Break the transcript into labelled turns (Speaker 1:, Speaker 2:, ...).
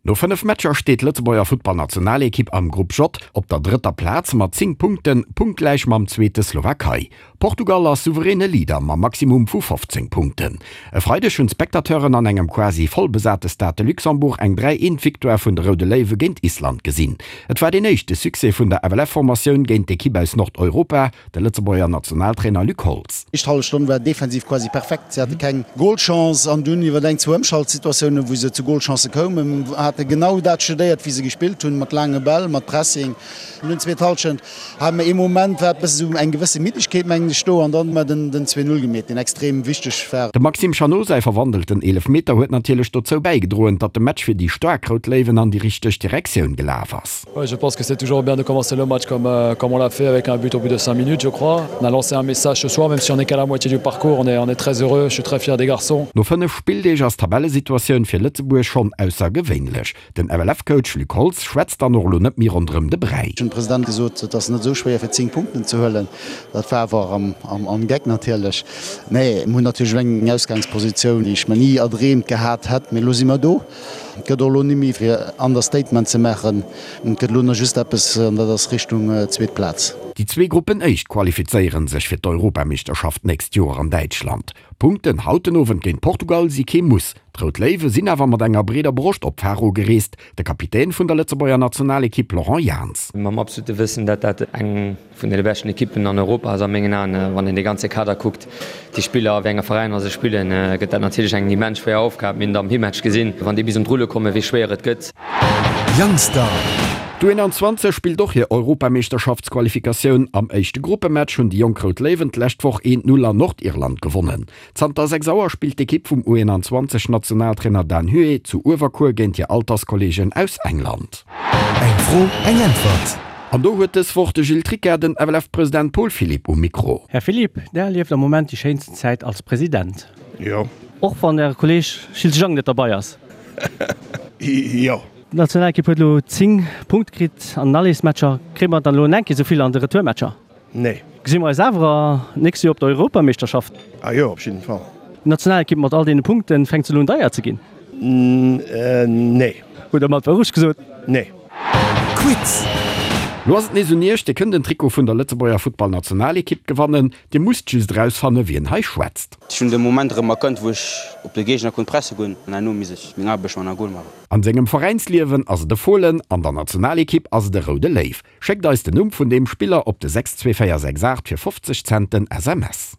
Speaker 1: No 5 Matcher steet d'Lëtzebuerger Futtballnationalekipp am Grupp J op der drëtter Plaz mat 10 Punkten, punktgläich mam zweete Slowakei. Portugal ass souveräne Leader mam Maximum vu 15 Punkten. E Freideg hunn d'Spectateuren an engem quasi vollbesate Stade de Luxembourg eng 3, 1 Victoire vun de Roude Léiwe géint Island gesinn. Et war deen éischte Succès vun der FLF-Formatioun géint d'Ekipp aus Nordeuropa. De Lëtzebuerger Nationaltrainer Luc Holtz.
Speaker 2: Éischt hallef Stonn war defensiv quasi perfekt. Si hate keng Golchance an dunn iwwer eng, zwou Ëmschaltsituatiounen, wou se zu Golchancë koumen, hate genau dat studéiert, wéi se gespillt hunn, mat laange Bäll, mat Pressing. An dunn zweet Hallschent hate mer ee Moment, war et bësse sou eng gewësse Middegkeet, mengen ech, do an dann hu mer den 2, 0 gemeet, deen extrem wichteg war.
Speaker 1: Dem Maxime Chanot säi verwandelten Eelefmeter huet natierlech dozou bäigedroen, datt de Match fir déi staark Rout Léiwen an déi richteg Direktioun gelaf ass.
Speaker 3: Ouais, je pense que c'est toujours bien de commencer le match comme, euh, comme on l'a fait avec un but au bout de 5 minutes, je crois. On a lancé un message ce soir, même si on n'est qu'à la moitié du parcours, on est, on est très heureux, je suis très fier des garçons.
Speaker 1: No 5 Spilldeeg ass d'Tabellesituatioun fir Lëtzebuerg schonn aussergewéinlech. Den FLF-Coach Luc Holtz schwätzt dann och elo net méi ronderëm de Bräi.
Speaker 2: Ech hunn dem President gesot, et ass net esou schwéier fir 10 Punkten ze huelen. Dat war awer am Geck natierlech. Nee, mir hunn natierlech elo eng Ausgangspositioun, déi ech mer ni erdreemt gehat hätt, mee elo si mer do. Et gëtt och elo ni méi fir Understatement ze maachen. Et gëtt elo nach just eppes, an dat ass Richtung zweet Plaz.
Speaker 1: Déi zwee Gruppenéischt qualifizéiere sech fir d'Europameeschterschaft d'nächst Joer an Däitschland. Punkten haut den Owend géint Portugal si kee Muss. D'Rout Léiwe sinn awer mat enger breeder Broscht op Faro gereest. De Kapitän vun der Lëtzebuerger Nationalekipp Laurent Jans.
Speaker 4: Mam absolute Wëssen, dat dat eng Vun deene beschten Ekippen an Europa ass a mengen Aen. Wann een dee ganze Kader kuckt, déi Spiller a wéi enge Veräiner se spillen, gëtt dat natierlech eng immens schwéier Aufgab. Mir hunn et am Himmatch gesinn, wann déi bis un d'Rulle kommen, wéi schwéier et gëtt.
Speaker 1: Youngstar. D'U21 spillt och hir Europameeschterschaftsqualifikatioun. Am éischte Gruppematch hunn déi jonk Rout Léiwen d'lescht Woch 1, 0 an Nordirland gewonnen. Zanter 6 Auer spillt d'Ekipp vum U21 Nationaltrainer Dan Huet zu Uewerkuer géint hir Alterskolleegen aus England.
Speaker 5: Eng Fro, eng Äntwert.
Speaker 1: An do huet dës Woch de Gilles Tricca den FLF-President Paul Philipp um Mikro.
Speaker 6: Här Philipp, Der erlieft am Moment déi schéinsten Zäit als President.
Speaker 7: Jo.
Speaker 6: Och wann Äre Kolleg Gilles Jang net derbei ass?
Speaker 7: Jo.
Speaker 6: D'Nationalekipp huet elo 10 Punkte kritt an den Allesmatcher. Kréie mer dann elo en enke souvill an de Retourmatcher?
Speaker 7: Nee.
Speaker 6: Gesi mer eis awer nächst Joer op der Europameeschterschaft?
Speaker 7: Ah jo, op jidden Fall.
Speaker 6: D'Nationalekipp mat all deene Punkten, fänkt se elo un deier ze ginn?
Speaker 7: Nee.
Speaker 6: Hutt der mat Wourecht gesot?
Speaker 7: Nee.
Speaker 5: Quiz!
Speaker 1: Lo ass et nees un iech, Dir kënnt en Trikot vun der Lëtzebuerger Futtballnationalekipp gewannen. Dir musst just erausfanne wien hei schwätzt.
Speaker 8: Ech hunn de Moment erëm erkannt, wou ech op de Géigner konnt presse goen an herno misst ech meng Aarbecht man a Gol maachen.
Speaker 1: An sengem Veräinsliewen ass et e Fohlen, an der Nationalekipp ass et e roude Léiw. Schéckt eis den Numm vun deem Spiller op de 62468 fir 50 Cent den SMS.